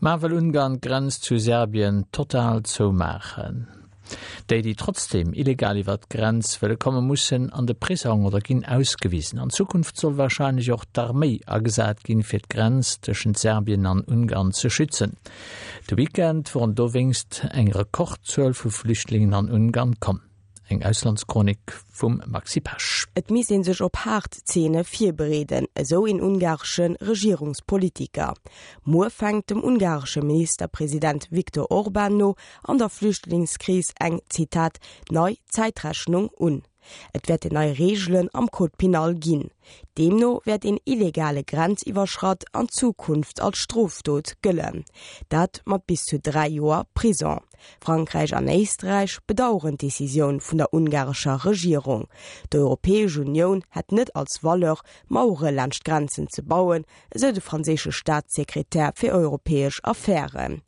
Ma wëll Ungarn d'Grenz zu Serbien total zoumaachen? Déi, déi trotzdeem illegal iwwert d'Grenz wëlle kommen, mussen an de Prisong oder ginn ausgewisen. An Zukunft soll warscheinlech och d'Arméi agesat ginn, fir d'Grenz tëschent Serbien an Ungarn ze schützen. De Weekend woren dowéinst eng Rekordzuel vu Flüchtlingen an Ungarn komm. Eng Auslandschronik vum Maxi Pesch. Et misst ee sech op haart Zeene virbereeden, esou een ungaresche Regierungspolitiker. Muer fänkt dem ungaresche Ministerpresident Viktor Orban no an der Flüchtlingskris eng, Zitat, nei Zäitrechnung un. Et wäerten nei Reegelen am Code pénal ginn. Deemno wäert een illegale Grenziwwerschratt an Zukunft als Strofdot gëllen. Dat mat bis zu 3 Joer Prison. Frankräich an Éisträich bedaueren d'Decisioun vun der ungarescher Regierung. D'Europäesch Unioun hätt net als Valeur, Mauere laanscht d'Grenzen ze bauen, esou de franséische Staatssekretär fir europäesch Affären.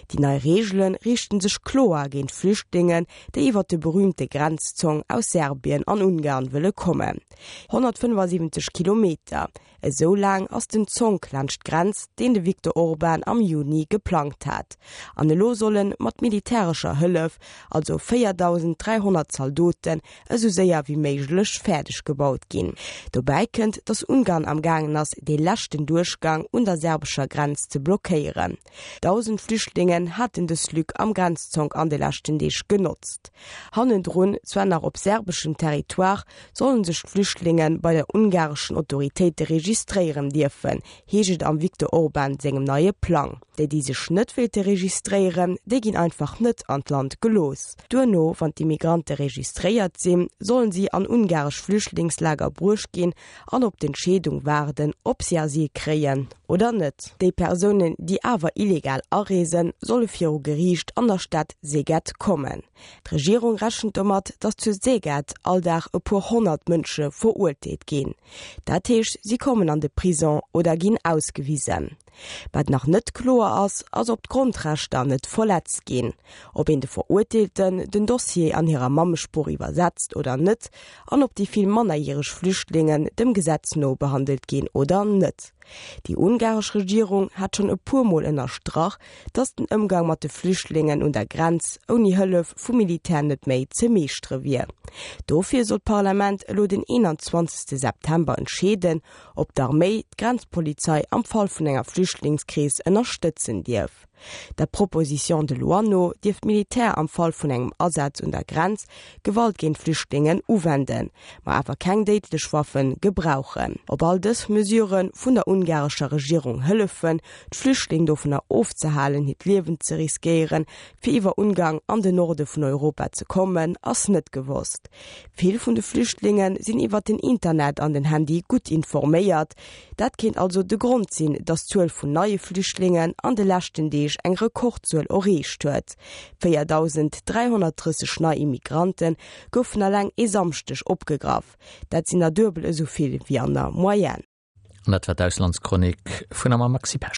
Déi nei Reegele riichten sech kloer géint Flüchtlingen, déi iwwer de berüümte Grenzzong aus Serbien an Ungarn wëlle kommen. 175 Kilometer, esou laang ass den Zonk laanscht d'Grenz, deen de Viktor Orban am Juni geplangt hat. An elo soll en mat militärescher Hëllef, also 4.300 Zaldoten, esou séier wéi méiglech fäerdeg gebaut ginn. Dobäi kënnt, datt Ungarn am gaangen ass, dee leschten Duerchgang un der serbescher Grenz ze blockéieren. 1.000 Flüchtlingen haten dës Lück am Grenzzonk an de leschten Deeg genotzt. Hannendrun, zwar nach op serbeschem Territoire, sollen sech d'Flüchtlinge bei der ungareschen Autoritéite registréieren dierfen, heescht et am Viktor Orban sengem neie Plang. Déi, déi sech net wéilte registréieren, déi ginn einfach net an d'Land gelooss. Duerno, wann d'Immigrante registréiert sinn, sollen si an ungaresch Flüchtlingslager bruecht ginn an op d'Entscheedung waarden, ob si Asyl kréien oder net. Déi Persounen, déi awer illegal areesen, solle viru Geriicht an der Stad Szeged kommen. D'Regierung rechent domat, datt zu Szeged all Dag e puer 100 Mënsche verurteelt ginn. Dat heescht, si kommen an de Prison oder ginn ausgewisen. Wat nach net kloer ass, ass ob d'Grondrechter net verletzt ginn, ob een de Verurteelten den Dossier an hirer Mammesprooch iwwersetzt oder net an ob déi vill mannerjäreg Flüchtlingen dem Gesetz no behandelt ginn oder net. Déi ungaresch Regierung hat schonn e puer Mol ënnerstrach, datt den Ëmgang mat de Flüchtlingen un der Grenz ouni Hëllef vum Militär net méi ze meeschtere wier. Dofir soll d'Parlament elo den 21 September entscheeden, ob d'Arméi d'Grenzpolizei am Fall vun enger Flüchtlingskris ënnerstëtzen dierf. Der Proposition de loi no dierf d'Militär am Fall vun engem Asaz un der Grenz Gewalt géint Flüchtlingen uwenden, ma awer keng déidlech Waffe gebrauchen. Ob all dës Mesurë vun der ungarescher Regierung hëllefen, d'Flüchtling dovunner ofzehalen, hiert Liewen ze riskéieren, fir iwwer Ungarn an den Norde vun Europa ze kommen, ass net gewosst. Vill vun de Flüchtlinge sinn iwwer den Internet an den Handy gutt informéiert. Dat kéint also de Grond sinn, datt d'Zuel vun neie Flüchtlingen an de leschten Deeg eng Rekordzuel erreecht huet. 4.330 nei Immigrante goufen eleng e Samschdeg opgegraff. Dat sinn der duebel esou vill wéi an der Moyenne. An dat war d'Auslandschronik vun a mam Maxi Pesch.